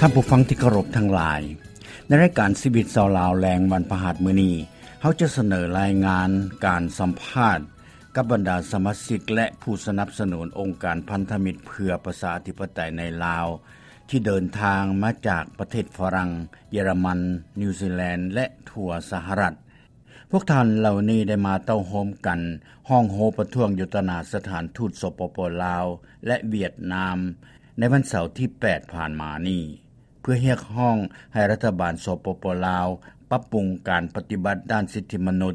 ທ່ານຜູ້ຟັງທີ່ເຄົາລົບທັງຫຼາຍ, ໃນລາຍການຊີວິດຊາວລາວແລງວັນພະຫັດມື້ນີ້, ເຮົາຈະສະເໜີລາຍງານການສຳພາດກັບບັນດາສະມາຊິກ ແລະ ຜູ້ສະໜັບສະໜູນອົງການພັນທະມິດເພື່ອປະຊາທິປະໄຕໃນລາວ ທີ່ເດີນທາງມາຈາກປະເທດຝຣັ່ງ, ເຢຍລະມັນ, ນິວຊີແລນ ແລະ ທົ່ວສະຫະລັດ. ພວກທ່ານເຫຼົ່ານີ້ໄດ້ມາເຕົ້າໂຮມກັນ ຮ້ອງໂຮປະທ້ວງຢູ່ຕໍ່ໜ້າສະຖານທູດ ສປປ ລາວ ແລະ ຫວຽດນາມ ໃນວັນເສົາທີແປດຜ່ານມານີ້ ເພື່ອຮຽກຮ້ອງໃຫ້ລັດຖະບານ ສປປ ລາວ ປັບປຸງການປະຕິບັດດ້ານສິດທິມະນຸດ,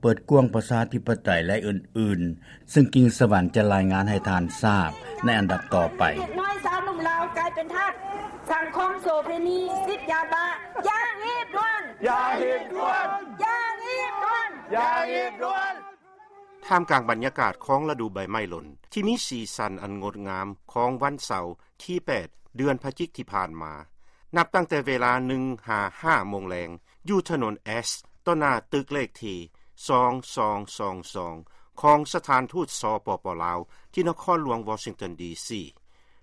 ເປີດກວ້າງປະຊາທິປະໄຕ ແລະ ອື່ນໆ, ຊຶ່ງກິ່ງສະຫວັນຈະລາຍງານໃຫ້ທ່ານຊາບໃນອັນດັບຕໍ່ໄປ. ເດັກນ້ອຍຊາວໜຸ່ມລາວກາຍເປັນທາດສັງຄົມໂສເພນີ, ຕິດຢາບ້າ, ຢ່າຮີບດ່ວນ! ຢ່າຮີບດ່ວນ! ຢ່າຮີບດ່ວນ! ຢ່າຮີບດ່ວນ! ທ່າມກາງບັນຍາກາດຂອງລະດູໃບໄມ້ຫຼົ່ນ ທີ່ມີສີສັນອັນງົດງາມຂອງວັນເສົາທີແປດ ເດືອນພະຈິກທີ່ຜ່ານມາ, ນັບຕັ້ງແຕ່ເວລາໜຶ່ງຫາຫ້າໂມງແລງ ຢູ່ຖະໜົນແອັສ ຕໍ່ໜ້າຕຶກເລກທີສອງສອງສອງສອງ ຂອງສະຖານທູດ ສປປ ລາວ ທີ່ນະຄອນຫຼວງວໍຊິງຕັນ ດີຊີ.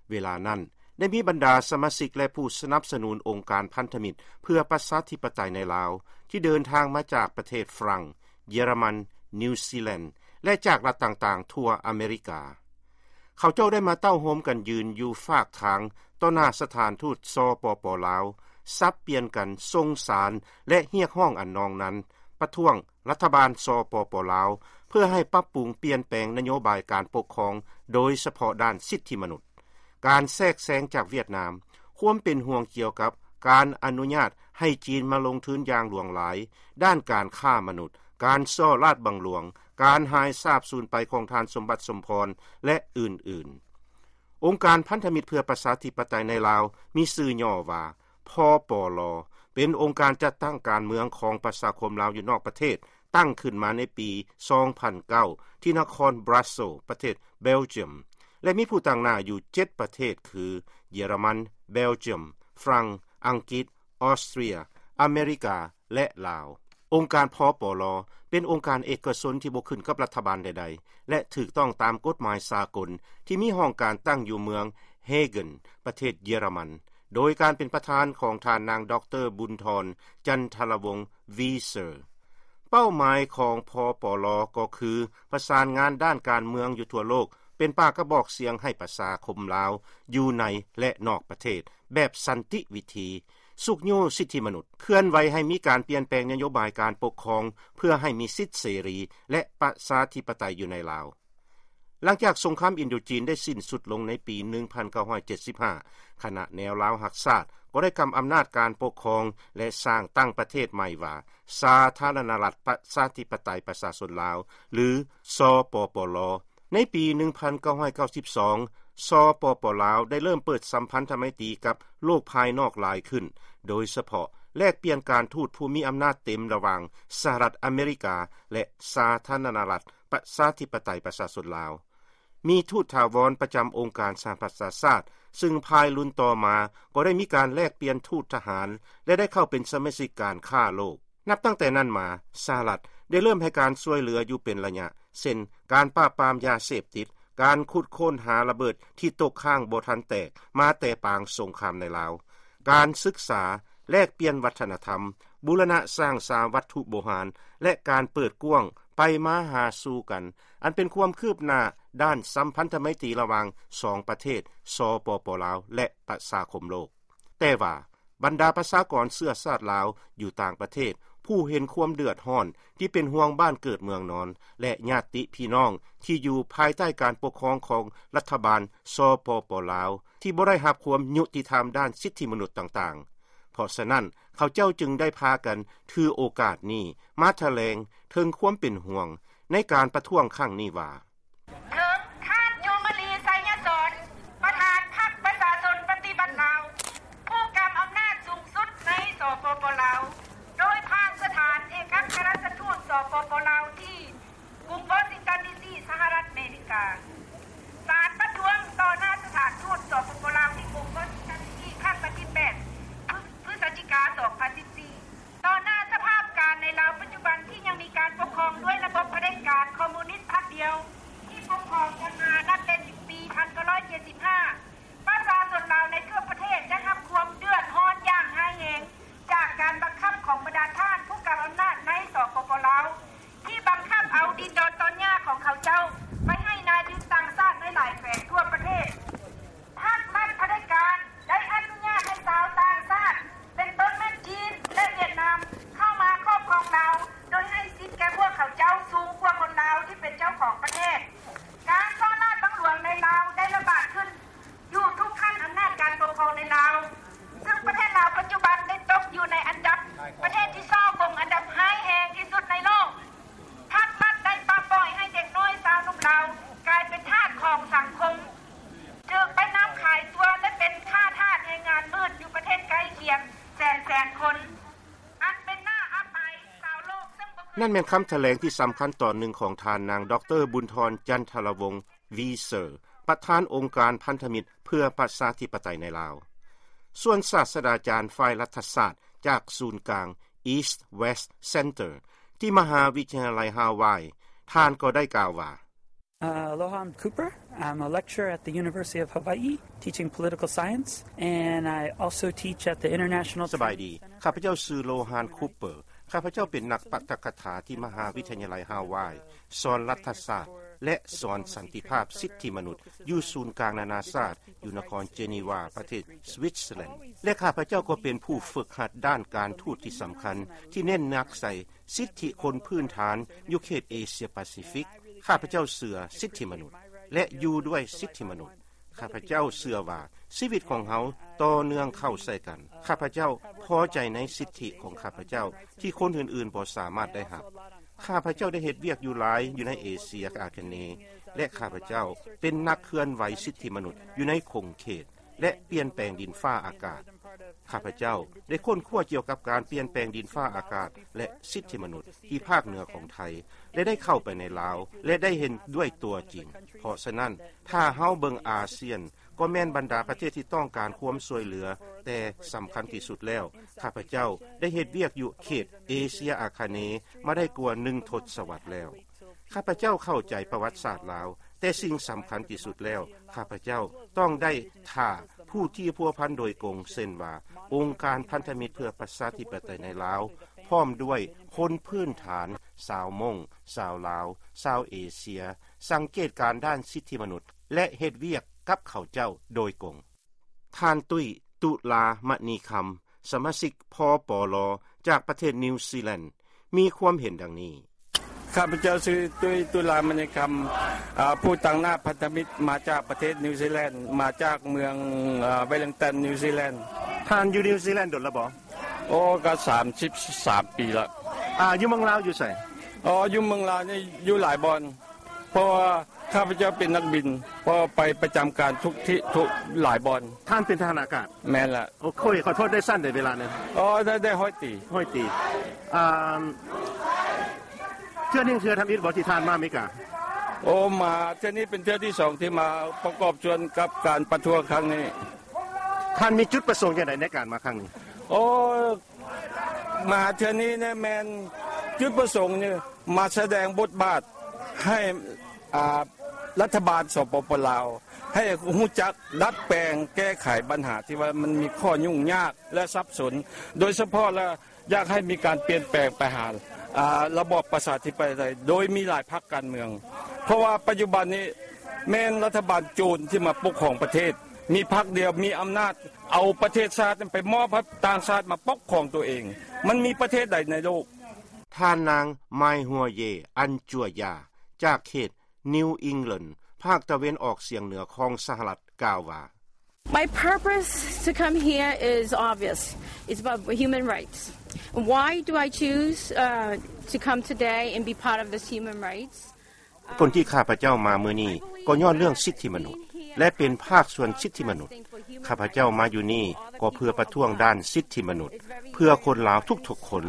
ເວລານັ້ນ ໄດ້ມີບັນດາສະມາຊິກ ແລະ ຜູ້ສະໜັບສະໜູນອົງການພັນທະມິດເພື່ອປະຊາທິປະໄຕໃນລາວ ທີ່ເດີນທາງມາຈາກປະເທດຝຣັ່ງ, ເຢຍລະມັນ, ນິວຊີແລນ ແລະ ຈາກລັດຕ່າງໆທົ່ວອາເມລິກາ. ເຂົາເຈົ້າໄດ້ມາເຕົ້າໂຮມກັນຢືນຢູ່ຟາກທາງຕໍ່ໜ້າສະຖານທູດ ສປປ ລາວ, ສັບປ່ຽນກັນສົ່ງສານ ແລະ ຮຽກຮ້ອງອັນນອງນັ້ນ ປະທ້ວງລັດຖະບານ ສປປ ລາວ ເພື່ອໃຫ້ປັບປຸງປ່ຽນແປງນະໂຍບາຍການປົກຄອງ, ໂດຍສະເພາະດ້ານສິດທິມະນຸດ, ການແຊກແຊງຈາກຫວຽດນາມ, ຄວາມເປັນຫ່ວງກ່ຽວກັບການອະນຸຍາດໃຫ້ຈີນມາລົງທຶນຢ່າງຫຼວງຫຼາຍດ້ານການຄ້າມະນຸດ, ການສໍ້ລາດບັງຫຼວງ, ການຫາຍສາບສູນໄປຂອງທ່ານສົມບັດ ສົມພອນ ແລະ ອື່ນໆ. ອົງການພັນທະມິດເພື່ອປະຊາທິປະໄຕໃນລາວ ມີຊື່ຫຍໍ້ວ່າ ພປລ, ເປັນອົງການຈັດຕັ້ງການເມືອງຂອງປະຊາຄົມລາວຢູ່ນອກປະເທດ, ຕັ້ງຂຶ້ນມາໃນປີສອງພັນເກົ້າ ທີ່ນະຄອນບຣັສເຊລ ປະເທດເບລຈຽມ ແລະ ມີຜູ້ຕາງໜ້າຢູ່ເຈັດປະເທດ ຄື ເຢຍລະມັນ, ເບລຈຽມ, ຝຣັ່ງ, ອັງກິດ, ອອສເຕຣຍ, ອາເມລິກາ ແລະ ລາວ. ອົງການ ພປລ ເປັນອົງການເອກະຊົນທີ່ບໍ່ຂຶ້ນກັບລັດຖະບານໃດໆ ແລະ ຖືກຕ້ອງຕາມກົດໝາຍສາກົນ ທີ່ມີຫ້ອງການຕັ້ງຢູ່ເມືອງເຮເກັນ ປະເທດເຢຍລະມັນ, ໂດຍການເປັນປະທານຂອງທ່ານນາງ ດຣ ບຸນທອນ ຈັນທະລະວົງ ວີເຊີ. ເປົ້າໝາຍຂອງ ພປລ ກໍຄືປະສານງານດ້ານການເມືອງຢູ່ທົ່ວໂລກ, ເປັນປາກກະບອກສຽງໃຫ້ປະຊາຄົມລາວຢູ່ໃນ ແລະ ນອກປະເທດ ແບບສັນຕິວິທີ, ຊຸກຍູ້ສິດທິມະນຸດ, ເຄື່ອນໄຫວໃຫ້ມີການປ່ຽນແປງນະໂຍບາຍການປົກຄອງ ເພື່ອໃຫ້ມີສິດເສລີ ແລະ ປະຊາທິປະໄຕຢູ່ໃນລາວ. ຫຼັງຈາກສົງຄາມອິນໂດຈີນໄດ້ສິ້ນສຸດລົງໃນປີໜຶ່ງພັນເກົ້າຮ້ອຍເຈັດສິບຫ້າ, ຄະນະແນວລາວຮັກຊາດກໍໄດ້ກຳອຳນາດການປົກຄອງ ແລະ ສ້າງຕັ້ງປະເທດໃໝ່ວ່າ ສາທາລະນະລັດ ປະຊາທິປະໄຕ ປະຊາຊົນລາວ ຫຼື ສປປລ. ໃນປີໜຶ່ງພັນເກົ້າຮ້ອຍເກົ້າສິບສອງ ສປປລາວ ໄດ້ເລີ່ມເປີດສຳພັນທະໄມຕີກັບໂລກພາຍນອກຫຼາຍຂຶ້ນ, ໂດຍສະເພາະແລກປ່ຽນການທູດຜູ້ມີອຳນາດເຕັມລະຫວ່າງສະຫະລັດອາເມລິກາ ແລະ ສາທາລະນະລັດ ປະຊາທິປະໄຕ ປະຊາຊົນລາວ. ມີທູດຖາວອນປະຈຳອົງການສະຫະປະຊາຊາດ, ຊຶ່ງພາຍລຸນຕໍ່ມາກໍໄດ້ມີການແລກປ່ຽນທູດທະຫານ ແລະ ໄດ້ເຂົ້າເປັນສະມາຊິກການຄ້າໂລກ. ນັບຕັ້ງແຕ່ນັ້ນມາ, ສະຫະລັດໄດ້ເລີ່ມໃຫ້ການຊ່ວຍເຫຼືອຢູ່ເປັນໄລຍະ, ເຊັ່ນ ການປາບປາມຢາເສບຕິດ, ການຂຸດຄົ້ນຫາລະເບີດທີ່ຕົກຄ້າງບໍ່ທັນແຕກມາແຕ່ປາງສົງຄາມໃນລາວ, ການສຶກສາ, ແລກປ່ຽນວັດທະນະທຳ, ບູລະນະສ້າງສາວັດຖຸໂບຮານ ແລະ ການເປີດກວ້າງໄປມາຫາສູ່ກັນ, ອັນເປັນຄວາມຄືບໜ້າດ້ານສຳພັນທະໄມຕີລະຫວ່າງສອງປະເທດ ສປປລາວ ແລະ ປະຊາຄົມໂລກ. ແຕ່ວ່າ ບັນດາປະຊາກອນເຊື້ອຊາດລາວຢູ່ຕ່າງປະເທດ ຜູ້ເຫັນຄວາມເດືອດຮ້ອນ ທີ່ເປັນຫ່ວງບ້ານເກີດເມືອງນອນ ແລະ ຍາດຕິພີ່ນ້ອງທີ່ຢູ່ພາຍໃຕ້ການປົກຄອງຂອງລັດຖະບານ ສປປລາວ ທີ່ບໍ່ໄດ້ຮັບຄວາມຍຸຕິທຳດ້ານສິດທິມະນຸດຕ່າງໆ. ເພາະສະນັ້ນ ເຂົາເຈົ້າຈຶ່ງໄດ້ພາກັນຖືໂອກາດນີ້ມາຖະແຫຼງເຖິງຄວາມເປັນຫ່ວງໃນການປະທ້ວງຄັ້ງນີ້ວ່າ ເຖິງທ່ານ ຈູມມະລີ ໄຊຍະສອນ ປະທານພັກປະຊາຊົນປະຕິວັດລາວ ຜູ້ກຳອຳນາດສູງສຸດໃນ ສປປ ລາວ ໂດຍຜ່ານສະຖານເອກອັກຄະລັດຖະທູດ ສປປ ລາວ ທີ່ກຸງວໍຊິງຕັນ ດີຊີ ສະຫະລັດອາເມລິກາ. ສານປະທ້ວງຕໍ່ໜ້າສະຖານທູດ ສປປ ລາວ ທີ່ກຸງວໍຊິງຕັນ ດີຊີ ຄັ້ງວັນທີແປດ ພຶສຈິກາ ສອງພັນສິບສີ່. ຕໍ່ໜ້າສະພາບການໃນລາວປັດຈຸບັນທີ່ຍັງມີການປົກຄອງດ້ວຍລະບົບຜະເດັດການຄອມມູນິດພັກດຽວ ທີ່ປົກຄອງກັນມານັບແຕ່ປີພັນເກົ້າຮ້ອຍເຈັດສິບຫ້າ ປະຊາຊົນລາວໃນທົ່ວປະເທດໄດ້ຮັບຄວາມເດືອ ນັ້ນແມ່ນຄຳຖະແຫຼງທີ່ສຳຄັນຕອນໜຶ່ງຂອງທ່ານນາງ ດຣ ບຸນທອນ ຈັນທະລະວົງ ວີເຊີ ປະທານອົງການພັນທະມິດເພື່ອປະຊາທິປະໄຕໃນລາວ. ສ່ວນສາດສະດາຈານຝ່າຍລັດຖະສາດຈາກສູນກາງ East West Center ທີ່ມະຫາວິທະຍາໄລຮາວາຍ ທ່ານກໍໄດ້ກ່າວວ່າ Uh, aloha, I'm Cooper. I'm a lecturer at the University of Hawaii, teaching political science, and I also teach at the International ສະບາຍດີ, ຂ້າພະເຈົ້າຊື່ ໂລຮານ ຄູເປີ. ຂ້າພະເຈົ້າເປັນນັກປາຖະກະຖາທີ່ມະຫາວິທະຍາໄລຮາວາຍ, ສອນລັດຖະສາດ ແລະ ສອນສັນຕິພາບສິດທິມະນຸດ ຢູ່ສູນກາງນານາຊາດ ຢູ່ນະຄອນເຈນີວາ ປະເທດສະວິດເຊີແລນ ແລະ ຂ້າພະເຈົ້າກໍເປັນຜູ້ຝຶກຫັດດ້ານການທູດທີ່ສຳຄັນ ທີ່ເນັ້ນໜັກໃສ່ ສິດທິຄົນພື້ນຖານຢູ່ເຂດເອເຊຍປາຊີຟິກ. ຂ້າພະເຈົ້າເຊື່ອສິດທິມະນຸດ ແລະ ຢູ່ດ້ວຍສິດທິມະນຸດ. ຂ້າພະເຈົ້າເຊື່ອວ່າຊີວິດຂອງເຮົາຕໍ່ເນື່ອງເຂົ້າໃສ່ກັນ. ຂ້າພະເຈົ້າພໍໃຈໃນສິດທິຂອງຂ້າພະເຈົ້າທີ່ຄົນອື່ນໆບໍ່ສາມາດໄດ້ຮັບ. ຂ້າພະເຈົ້າໄດ້ເຮັດວຽກຢູ່ຫຼາຍຢູ່ໃນເອເຊຍອາຄະເນ ແລະ ຂ້າພະເຈົ້າເປັນນັກເຄື່ອນໄຫວສິດທິມະນຸດຢູ່ໃນຂົງເຂດ ແລະ ປ່ຽນແປງດິນຟ້າອາກາດ. ຂ້າພະເຈົ້າໄດ້ຄົ້ນຄວ້າກ່ຽວກັບການປ່ຽນແປງດິນຟ້າອາກາດ ແລະ ສິດທິມະນຸດທີ່ພາກເໜືອຂອງໄທ ແລະ ໄດ້ເຂົ້າໄປໃນລາວ ແລະ ໄດ້ເຫັນດ້ວຍຕົວຈິງ. ເພາະສະນັ້ນ, ຖ້າເຮົາເບິ່ງອາຊຽນ, ກໍແມ່ນບັນດາປະເທດທີ່ຕ້ອງການຄວາມຊ່ວຍເຫຼືອ, ແຕ່ສຳຄັນທີ່ສຸດແລ້ວ, ຂ້າພະເຈົ້າໄດ້ເຮັດວຽກຢູ່ເຂດເອເຊຍອາຄະເນມາໄດ້ກວ່າໜຶ່ງທົດສະວັດແລ້ວ. ຂ້າພະເຈົ້າເຂົ້າໃຈປະຫວັດສາດລາວ, ແຕ່ສິ່ງສຳຄັນທີ່ສຸດແລ້ວ, ຂ້າພະເຈົ້າຕ້ອງໄດ້ຖ້າຜູ້ທີ່ພົວພັນໂດຍກົງ, ເຊັ່ນວ່າ ອົງການພັນທະມິດເພື່ອປະຊາທິປະໄຕໃນລາວ, ພ້ອມດ້ວຍຄົນພື້ນຖານ, ຊາວມົ້ງ, ຊາວລາວ, ຊາວເອເຊຍ, ສັງເກດການດ້ານສິດທິມະນຸດ ແລະ ເຮັດວຽກກັບເຂົາເຈົ້າໂດຍກົງ. ທ່ານ ຕຸ້ຍ ຕຸລາມະນີຄຳ, ສະມາຊິກ ພປລ ຈາກປະເທດນິວຊີແລນ ມີຄວາມເຫັນດັ່ງນີ້. ຂ້າພະເຈົ້າຊື່ ຕຸ້ຍ ຕຸລາມະນີຄຳ, ອາ, ຜູ້ຕາງໜ້າພັນທະມິດ ມາຈາກປະເທດນິວຊີແລນ, ມາຈາກເມືອງ, ອາ, ເວລິງຕັນ ນິວຊີແລນ. ທ່ານຢູ່ນິວຊີແລນດົນແລ້ວບໍ່? ໂອ້, ກໍສາມສິບສາມປີລະ. ອາ, ຢູ່ເມືອງລາວຢູ່ໃສ? ອໍ, ຢູ່ເມືອງລາວນີ້ຢູ່ຫຼາຍບ່ອນ, ເພາະວ່າ ຂ້າພະເຈົ້າເປັນນັກບິນ, ເພາະໄປປະຈຳການທຸກທີ່, ທຸກຫຼາຍບ່ອນ. ທ່ານເປັນທະຫານອາກາດ? ແມ່ນລະ. ໂອເຄ, ຂໍໂທດ, ໄດ້ຊັ້ນໃດເວລານັ້ນ? ອໍ, ໄດ້, ໄດ້ຮ້ອຍຕີ. ຮ້ອຍຕີ. ອາ, ເທື່ອນີ້ເທື່ອທຳອິດບໍ່ທີ່ທ່ານມາອາເມລິກາ? ໂອ, ມາເທື່ອນີ້ເປັນເທື່ອທີສອງທີ່ມາປະກອບສ່ວນກັບການປະທ້ວງຄັ້ງນີ້. ທ່ານມີຈຸດປະສົງຈັ່ງໃດໃນການມາຄັ້ງນີ້? ໂອ, ມາເທື່ອນີ້ນະ ແມ່ນຈຸດປະສົງນີ້ມາສະແດງບົດບາດໃຫ້, ອາ, ລັດຖະບານ ສປປ ລາວ ໃຫ້ຮູ້ຈັກດັດແປງແກ້ໄຂບັນຫາທີ່ວ່າມັນມີຂໍ້ຫຍຸ້ງຍາກ ແລະ ສັບສົນ, ໂດຍສະເພາະລະຢາກໃຫ້ມີການປ່ຽນແປງໄປຫາ, ອາ, ລະບອບປະຊາທິປະໄຕ ໂດຍມີຫຼາຍພັກການເມືອງ, ເພາະວ່າປັດຈຸບັນນີ້ແມ່ນລັດຖະບານໂຈນທີ່ມາປົກຄອງປະເທດ, ມີພັກດຽວ ມີອຳນາດ ເອົາປະເທດຊາດນັ້ນໄປມອບໃຫ້ຕ່າງຊາດມາປົກຄອງຕົວເອງ. ມັນມີປະເທດໃດໃນໂລກ? ທ່ານນາງ ມາຍຫົວເຢ ອັນຈົວຢາ ຈາກເຂດນິວອິງແລນ ພາກຕາເວັນອອກສຽງເໜືອຂອງສະຫະລັດ ກ່າວວ່າ My purpose to come here is obvious. It's about human rights. Why do I choose, uh, to come today and be part of this human rights? ຜົນທີ່ຂ້າພະເຈົ້າມາມື້ນີ້ກໍຍ້ອນເລື່ອງສິດທິມະນຸດ ແລະ ເປັນພາກສ່ວນສິດທິມະນຸດ. ຂ້າພະເຈົ້າມາຢູ່ນີ້ກໍເພື່ອປະທ້ວງດ້ານສິດທິມະນຸດ ເພື່ອຄົນລາວທຸກໆຄົນ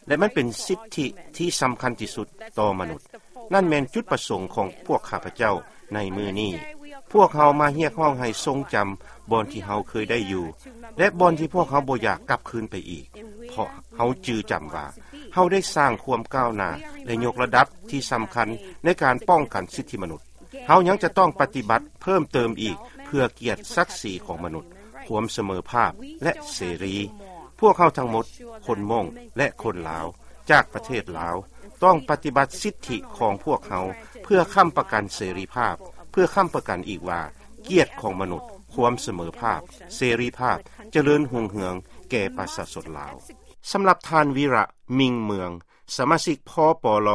ແລະ ມັນເປັນສິດທິທີ່ສຳຄັນທີ່ສຸດຕໍ່ມະນຸດ. ນັ້ນແມ່ນຈຸດປະສົງຂອງພວກຂ້າພະເຈົ້າໃນມື້ນີ້. ພວກເຮົາມາຮຽກຮ້ອງໃຫ້ຊົງຈຳບ່ອນທີ່ເຮົາເຄີຍໄດ້ຢູ່ ແລະ ບ່ອນທີ່ພວກເຮົາບໍ່ຢາກກັບຄືນໄປອີກ, ເພາະເຮົາຈື່ຈຳວ່າ ເຮົາໄດ້ສ້າງຄວາມກ້າວໜ້າ ແລະ ຍົກລະດັບທີ່ສຳຄັນໃນການປ້ອງກັນສິດທິມະນຸດ. ເຮົາຍັງຈະຕ້ອງປະຕິບັດເພີ່ມເຕີມອີກ ເພື່ອກຽດສັກສີຂອງມະນຸດ, ຄວາມສະເໝີພາບ ແລະ ເສລີ. ພວກເຮົາທັງໝົດ, ຄົນມົ້ງ ແລະ ຄົນລາວ ຈາກປະເທດລາວ ຕ້ອງປະຕິບັດສິດທິຂອງພວກເຮົາ ເພື່ອຄ້ຳປະກັນເສລີພາບ, ເພື່ອຄ້ຳປະກັນອີກວ່າ ກຽດຂອງມະນຸດ, ຄວາມສະເໝີພາບ, ເສລີພາບ, ຈະເລີນຮຸ່ງເຮືອງແກ່ປະຊາຊົນລາວ. ສຳລັບທ່ານ ວິລະ ມິງເມືອງ, ສະມາຊິກ ພປລ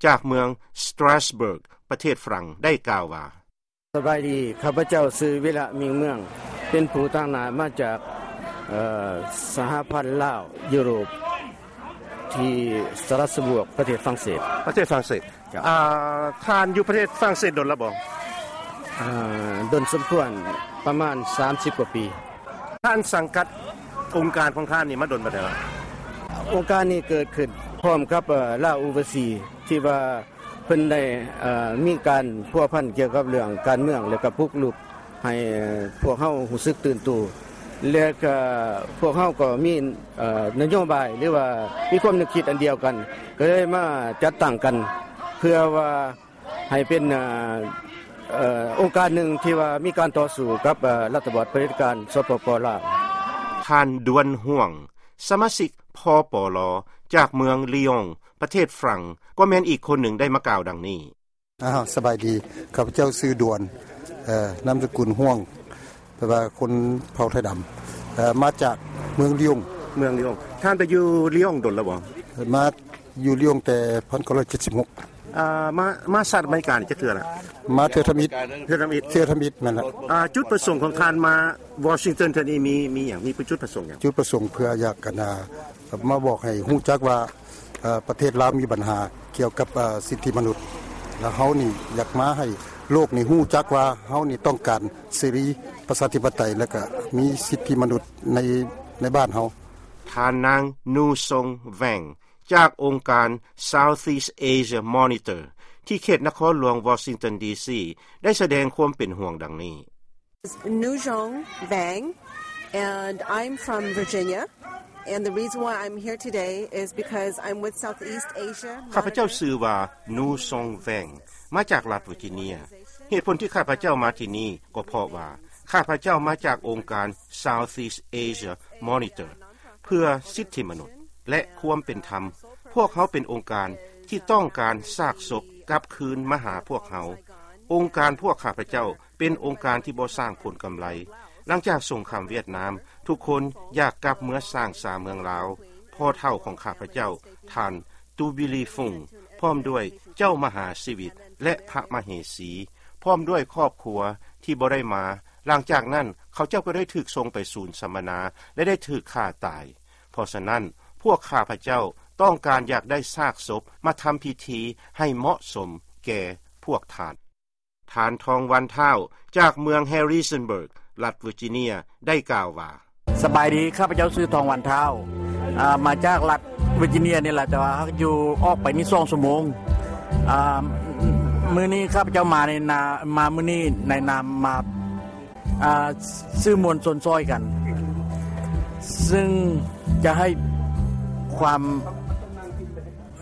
ຈາກເມືອງ Strasbourg ປະເທດຝຣັ່ງ ໄດ້ກ່າວວ່າ ສະບາຍດີ, ຂ້າພະເຈົ້າຊື່ ວິລະ ມິງເມືອງ, ເປັນຜູ້ຕາງໜ້າມາຈາກ, ເອີ່, ສະຫະພັນລາວຢູໂຣບ ທີ່ Strasbourg ປະເທດຝຣັ່ງເສດ. ປະເທດຝຣັ່ງເສດ. ເຈົ້າ. ອາ, ທ່ານຢູ່ປະເທດຝຣັ່ງເສດດົນແລ້ວບໍ່? ອາ, ດົນສົມຄວນ, ປະມານສາມສິບກວ່າປີ. ທ່ານສັງກັດອົງການຂອງທ່ານນີ້ມາດົນປານໃດແລ້ວ? ອົງການນີ້ເກີດຂຶ້ນ ພ້ອມກັບ ເອີ ລາວອູບາຊີ ທີ່ວ່າເພິ່ນໄດ້ ເອີ ມີການພົວພັນກ່ຽວກັບເລື່ອງການເມືອງ ແລະກໍປຸກລຸກໃຫ້ພວກເຮົາຮູ້ສຶກຕື່ນໂຕ ແລະກໍພວກເຮົາກໍມີ ເອີ ນະໂຍບາຍ ຫຼືວ່າມີຄວາມນຶກຄິດອັນດຽວກັນ ກໍເລີຍມາຈັດຕັ້ງກັນ ເພື່ອວ່າ ໃຫ້ເປັນ ເອີ ເອີ ອົງການໜຶ່ງທີ່ວ່າມີການຕໍ່ສູ້ກັບ ເອີ ລັດຖະບານຜະເດັດການ ສປປ ລາວ. ທ່ານ ດວນ ຮ່ວງ ສະມາຊິກ ພປລ ຈາກເມືອງ Lyon ປະເທດຝຣັ່ງ ກໍແມ່ນອີກຄົນໜຶ່ງໄດ້ມາກ່າວດັ່ງນີ້. ອ້າວ ສະບາຍດີ ຂ້າພະເຈົ້າຊື່ ດວນ ເອີ ນາມສະກຸນ ຮ່ວງ ແປວ່າຄົນເຜົ່າໄທດຳ ເອີ ມາຈາກເມືອງ Lyon. ເມືອງ Lyon. ທ່ານໄປຢູ່ Lyon ດົນແລ້ວບໍ່? ມາຢູ່ Lyon ແຕ່ ພັນເກົ້າຮ້ອຍເຈັດສິບຫົກ. ເອີ ມາ ມາສະຫະລັດອາເມລິການີ້ຈັກເທື່ອລະ? ມາເທື່ອທຳອິດ. ເທື່ອທຳອິດ. ເທື່ອທຳອິດ ແມ່ນລະ. ເອີ ຈຸດປະສົງຂອງທ່ານມາ Washington ເທື່ອນີ້ມີ ມີຫຍັງ? ມີຈຸດປະສົງຫຍັງ? ຈຸດປະສົງເພື່ອຢາກ ອັນນ່າ ມາບອກໃຫ້ຮູ້ຈັກວ່າ ເອີ ປະເທດລາວມີບັນຫາກ່ຽວກັບ ເອີ ສິດທິມະນຸດ ແລະເຮົານີ້ຢາກມາໃຫ້ໂລກນີ້ຮູ້ຈັກວ່າເຮົານີ້ຕ້ອງການເສລີ ປະຊາທິປະໄຕ ແລະກະມີສິດທິມະນຸດໃນ ໃນບ້ານເຮົາ. ທ່ານນາງ ນູຊອງ ແວງ ຈາກອົງການ Southeast Asia Monitor ທີ່ເຂດນະຄອນຫຼວງວໍຊິງຕັນ ດີຊີ ໄດ້ສະແດງຄວາມເປັນຫ່ວງດັ່ງນີ້. Nuzhong Vang, and I'm from Virginia. And the reason why I'm here today is because I'm with Southeast Asia. ຂ້າພະເຈົ້າຊື່ວ່າ ນູຊອງ ແວງ ມາຈາກລັດເວີຈິເນຍ. ເຫດຜົນທີ່ຂ້າພະເຈົ້າມາທີ່ນີ້ກໍເພາະວ່າ ຂ້າພະເຈົ້າມາຈາກອົງການ Southeast Asia Monitor ເພື່ອສິດທິມະນຸດ ແລະ ຄວາມເປັນທຳ. ພວກເຮົາເປັນອົງການທີ່ຕ້ອງການຊາກສົບກັບຄືນມາຫາພວກເຮົາ. ອົງການພວກຂ້າພະເຈົ້າ ເປັນອົງການທີ່ບໍ່ສ້າງຜົນກຳໄລ. ຫຼັງຈາກສົງຄາມຫວຽດນາມ, ທຸກຄົນຢາກກັບເມືອສ້າງສາເມືອງລາວ. ພໍ່ເຖົ້າຂອງຂ້າພະເຈົ້າ, ທ່ານ ຕູບີລີຟຸງ, ພ້ອມດ້ວຍເຈົ້າມະຫາຊີວິດ ແລະ ພະມະເຫສີ, ພ້ອມດ້ວຍຄອບຄົວທີ່ບໍ່ໄດ້ມາ. ຫຼັງຈາກນັ້ນ, ເຂົາເຈົ້າກໍໄດ້ຖືກສົ່ງໄປສູນສຳມະນາ ແລະ ໄດ້ຖືກຂ້າຕາຍ. ເພາະສະນັ້ນ, ພວກຂ້າພະເຈົ້າຕ້ອງການຢາກໄດ້ຊາກສົບມາທຳພິທີໃຫ້ເໝາະສົມແກ່ພວກທ່ານ. ທ່ານ ທອງວັນ ທ້າວ ຈາກເມືອງ Harrisonburg ລັດ Virginia ໄດ້ກ່າວວ່າ, ສະບາຍດີ, ຂ້າພະເຈົ້າຊື່ ທອງວັນ ທ້າວ ອາ ມາຈາກລັດ Virginia ນີ້ລະ, ແຕ່ວ່າຢູ່ອອກໄປນີ້ສອງຊົ່ວໂມງ. ອາ ມື້ນີ້ຂ້າພະເຈົ້າມາໃນນາ ມາມື້ນີ້ໃນນາມມາ ອາ ສື່ມວນຊົນຊ່ອຍກັນ ຊຶ່ງຈະໃຫ້ຄວາມ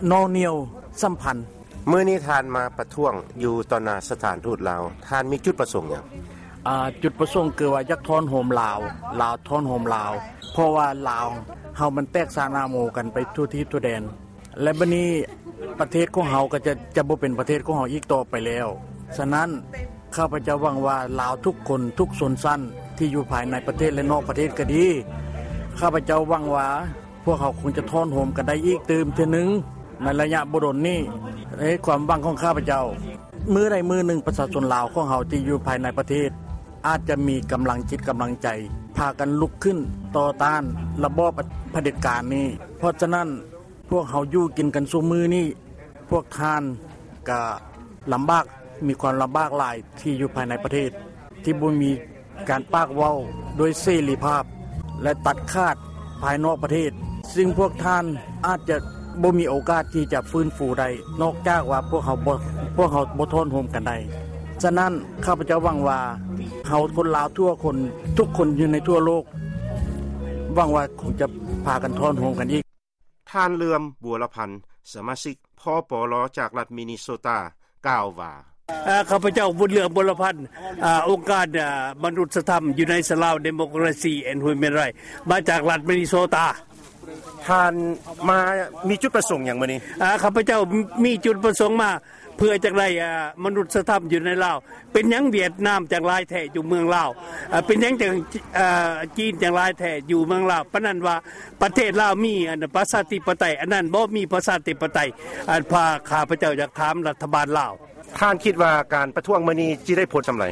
ໜໍ່ໜ່ຽວສຳພັນ. ມື້ນີ້ທ່ານມາປະທ້ວງຢູ່ຕໍ່ໜ້າສະຖານທູດລາວ, ທ່ານມີຈຸດປະສົງຫຍັງ? ອາ ຈຸດປະສົງຄືວ່າຢາກທ້ອນໂຮມລາວ, ລາວທ້ອນໂຮມລາວ, ເພາະວ່າລາວເຮົາມັນແຕກສານອາໂມກັນໄປທົ່ວທີບທົ່ວແດນ, ແລະ ບັດນີ້ປະເທດຂອງເຮົາກໍຈະ ຈະບໍ່ເປັນປະເທດຂອງເຮົາອີກຕໍ່ໄປແລ້ວ. ສະນັ້ນ ຂ້າພະເຈົ້າຫວັງວ່າລາວທຸກຄົນ, ທຸກຊົນຊັ້ນທີ່ຢູ່ພາຍໃນປະເທດ ແລະ ນອກປະເທດກໍດີ, ຂ້າພະເຈົ້າຫວັງວ່າ ພວກເຮົາຄົງຈະທ້ອນໂຮມກັນໄດ້ອີກຕື່ມເທື່ອໜຶ່ງໃນໄລຍະບໍ່ດົນນີ້. ເອີ ຄວາມຫວັງຂອງຂ້າພະເຈົ້າ, ມື້ໃດມື້ໜຶ່ງປະຊາຊົນລາວຂອງເຮົາທີ່ຢູ່ພາຍໃນປະເທດ ອາດຈະມີກຳລັງຈິດກຳລັງໃຈ ພາກັນລຸກຂຶ້ນຕໍ່ຕ້ານລະບອບຜະເດັດການນີ້. ເພາະສະນັ້ນ ພວກເຮົາຢູ່ກິນກັນຊຸມື້ນີ້, ພວກທ່ານກະລຳບາກ, ມີຄວາມລຳບາກຫຼາຍທີ່ຢູ່ພາຍໃນປະເທດ ທີ່ບໍ່ມີ ການປາກເວົ້າດ້ວຍເສລີພາບ ແລະ ຕັດຂາດພາຍນອກປະເທດ, ຊຶ່ງພວກທ່ານອາດຈະບໍ່ມີໂອກາດທີ່ຈະຟື້ນຟູໄດ້ ນອກຈາກວ່າພວກເຮົາບໍ່ ພວກເຮົາບໍ່ທ້ອນໂຮມກັນໄດ້. ສະນັ້ນ ຂ້າພະເຈົ້າຫວັງວ່າ ເຮົາຄົນລາວທຸກຄົນ, ທຸກຄົນຢູ່ໃນທົ່ວໂລກ ຫວັງວ່າຄົງຈະພາກັນທ້ອນໂຮມກັນອີກ. ທ່ານ ເຫຼືອມ ບົວລະພັນ ສະມາຊິກ ພປລ ຈາກລັດມິນິໂຊຕາ ກ່າວວ່າ, ເອີ ຂ້າພະເຈົ້າ ບຸນເຫຼືອມ ບົວລະພັນ ເອີ ອົງການ ເອີ ມະນຸດສະທຳ United Lao Democracy and Human Rights ມາຈາກລັດມິນິໂຊຕາ. ທ່ານມາມີຈຸດປະສົງຫຍັງມື້ນີ້? ເອີ ຂ້າພະເຈົ້າມີຈຸດປະສົງມາ ເພື່ອຈະໄດ້ ເອີ ມະນຸດສະທຳຢູ່ໃນລາວ. ເປັນຫຍັງຫວຽດນາມຈັ່ງຫຼາຍແທ້ຢູ່ເມືອງລາວ? ເອີ ເປັນຫຍັງຈັ່ງ ເອີ ຈີນຈັ່ງຫຼາຍແທ້ຢູ່ເມືອງລາວ? ປານນັ້ນວ່າປະເທດລາວມີ ອັນ ປະຊາທິປະໄຕ, ອັນນັ້ນບໍ່ມີປະຊາທິປະໄຕ. ອັນ ພາ ຂ້າພະເຈົ້າຢາກຖາມລັດຖະບານລາວ. ທ່ານຄິດວ່າການປະທ້ວງມື້ນີ້ຊິໄດ້ຜົນສ່ຳໃດ?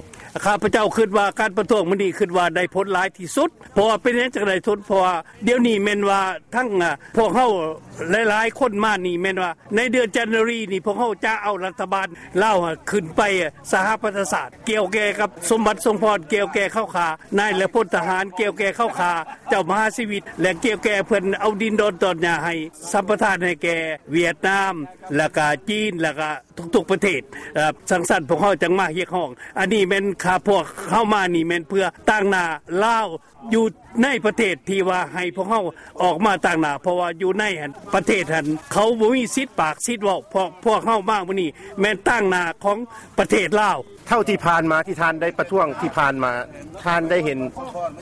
ຂ້າພະເຈົ້າຄິດວ່າການປະທ້ວງມື້ນີ້ ຄິດວ່າໄດ້ຜົນຫຼາຍທີ່ສຸດ. ເພາະວ່າເປັນຫຍັງຈັ່ງໄດ້ຜົນ? ເພາະວ່າດຽວນີ້ແມ່ນວ່າທັງ ອາ ພວກເຮົາຫຼາຍໆຄົນມານີ້ ແມ່ນວ່າໃນເດືອນຈັນນາຣີນີ້ ພວກເຮົາຈະເອົາລັດຖະບານລາວຂຶ້ນໄປສະຫະປະຊາຊາດ ກ່ຽວແກ່ກັບສົມບັດ ສົມພອນ, ກ່ຽວແກ່ເຂົາຂ້ານາຍ ແລະ ພົນທະຫານ, ກ່ຽວແກ່ເຂົາຂ້າເຈົ້າມະຫາຊີວິດ ແລະ ກ່ຽວແກ່ເພິ່ນເອົາດິນດອນຕອນຫຍ້າໃຫ້ ສຳປະທານໃຫ້ແກ່ຫວຽດນາມ ແລ້ວກະຈີນ ແລ້ວກະທຸກໆປະເທດ. ຈັ່ງຊັ້ນພວກເຮົາຈັ່ງມາຮຽກຮ້ອງ. ອັນນີ້ແມ່ນຂ້າພວກເຮົາມານີ້ແມ່ນເພື່ອຕາງໜ້າລາວຢູ່ໃນປະເທດ ທີ່ວ່າໃຫ້ພວກເຮົາອອກມາຕາງໜ້າ ເພາະວ່າຢູ່ໃນຫັ້ນ ປະເທດຫັ້ນ ເຂົາບໍ່ມີສິດປາກສິດເວົ້າ. ພວກ ພວກເຮົາມາມື້ນີ້ແມ່ນຕາງໜ້າຂອງປະເທດລາວ. ເທົ່າທີ່ຜ່ານມາທີ່ທ່ານໄດ້ປະທ້ວງທີ່ຜ່ານມາ ທ່ານໄດ້ເຫັນ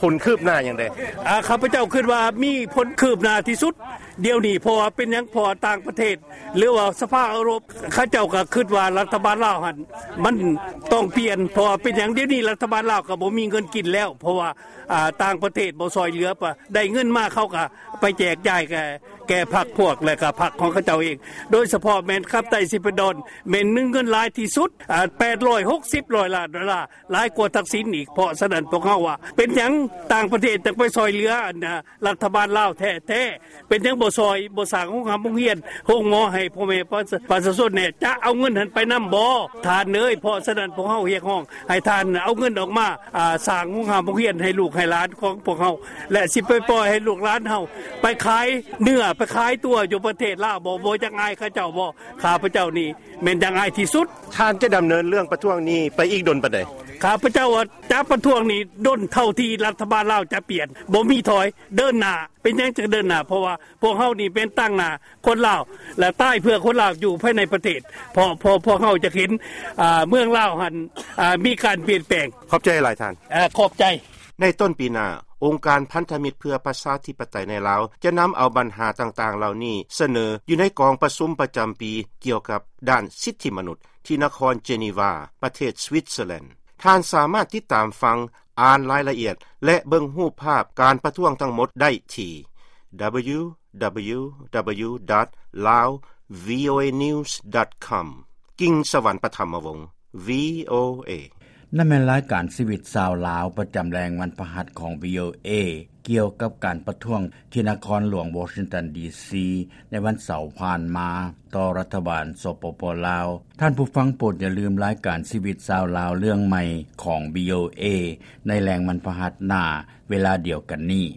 ຜົນຄືບໜ້າຫຍັງແດ່? ອາ ຂ້າພະເຈົ້າຄິດວ່າມີຜົນຄືບໜ້າທີ່ສຸດດຽວນີ້. ເພາະວ່າເປັນຫຍັງ? ເພາະວ່າຕ່າງປະເທດ ຫຼືວ່າສະພາເອີຣົບ ເຂົາເຈົ້າກໍຄິດວ່າລັດຖະບານລາວຫັ້ນມັນຕ້ອງປ່ຽນ. ເພາະວ່າເປັນຫຍັງ? ດຽວນີ້ລັດຖະບານລາວກໍບໍ່ມີເງິນກິນແລ້ວ ເພາະວ່າ ອາ ຕ່າງປະເທດບໍ່ຊ່ອຍເຫຼືອ ໄດ້ເງິນມາເຂົາກໍໄປແຈກຈ່າຍແກ່ ແກ່ພັກພວກ ແລະກໍພັກຂອງເຂົາເຈົ້າເອງ. ໂດຍສະເພາະແມ່ນກັບໄຕຊິປະດອນ ແມ່ນມີເງິນຫຼາຍທີ່ສຸດ ອາ ແປດຮ້ອຍຫົກສິບຮ້ອຍລ້ານໂດລາ ຫຼາຍກວ່າທັກສິນອີກ. ເພາະສະນັ້ນພວກເຮົາວ່າ ເປັນຫຍັງຕ່າງປະເທດຈັ່ງໄປຊ່ອຍເຫຼືອ ອັນ ລັດຖະບານລາວແທ້ໆ? ເປັນຫຍັງບໍ່ຊ່ອຍ ບໍ່ສ້າງໂຮງຮ່ຳໂຮງຮຽນ ໂຮງໝໍໃຫ້ພໍ່ແມ່ປະຊາ ປະຊາຊົນແດ່? ຈະເອົາເງິນຫັ້ນໄປນຳບໍ່ ທ່ານເອີຍ? ເພາະສະນັ້ນພວກເຮົາຮຽກຮ້ອງໃຫ້ທ່ານເອົາເງິນອອກມາ ອາ ສ້າງໂຮງຮ່ຳໂຮງຮຽນໃຫ້ລູກໃຫ້ຫຼານຂອງພວກເຮົາ ແລະ ຊິໄປປ່ອຍໃຫ້ລູກຫຼານເຮົາໄປຂາຍເນື້ອ ໄປຂາຍຕົວຢູ່ປະເທດລາວບໍ່? ບໍ່ຈັກອາຍເຂົາເຈົ້າບໍ່? ຂ້າພະເຈົ້ານີ້ແມ່ນຢາກອາຍທີ່ສຸດ. ທ່ານຈະດຳເນີນເລື່ອງປະທ້ວງນີ້ໄປອີກດົນປານໃດ? ຂ້າພະເຈົ້າວ່າຈະປະທ້ວງນີ້ດົນເທົ່າທີ່ລັດຖະບານລາວຈະປ່ຽນ ບໍ່ມີຖອຍ ເດີນໜ້າ. ເປັນຫຍັງຈຶ່ງເດີນໜ້າ? ເພາະວ່າພວກເຮົານີ້ເປັນຕາງໜ້າຄົນລາວ ແລະ ຕາຍເພື່ອຄົນລາວຢູ່ພາຍໃນປະເທດ. ເພາະ ເພາະພວກເຮົາຈະເຫັນ ອາ ເມືອງລາວຫັ້ນ ອາ ມີການປ່ຽນແປງ. ຂອບໃຈຫຼາຍທ່ານ. ອາ ຂອບໃຈ. ໃນຕົ້ນປີໜ້າ, ອົງການພັນທະມິດເພື່ອປະຊາທິປະໄຕໃນລາວ ຈະນຳເອົາບັນຫາຕ່າງໆເຫຼົ່ານີ້ສະເໜີຢູ່ໃນກອງປະຊຸມປະຈຳປີກ່ຽວກັບດ້ານສິດທິມະນຸດ ທີ່ນະຄອນເຈນີວາ ປະເທດສະວິດເຊີແລນ. ທ່ານສາມາດຕິດຕາມຟັງ, ອ່ານລາຍລະອຽດ ແລະ ເບິ່ງຮູບພາບການປະທ້ວງທັງໝົດໄດ້ທີ່ www.laovnews.com. ກິ່ງສະຫວັນ ປະຖຳມະວົງ VOA. ນັ້ນແມ່ນລາຍການຊີວິດຊາວລາວ ປະຈຳແລງວັນພະຫັດຂອງ VOA ກ່ຽວກັບການປະທ້ວງທີ່ນະຄອນຫຼວງວໍຊິງຕັນ ດີຊີ ໃນວັນເສົາຜ່ານມາຕໍ່ລັດຖະບານ ສປປ ລາວ. ທ່ານຜູ້ຟັງໂປດຢ່າລືມລາຍການຊີວິດຊາວລາວເລື່ອງໃໝ່ຂອງ VOA ໃນແລງວັນພະຫັດໜ້າເວລາດຽວກັນນີ້.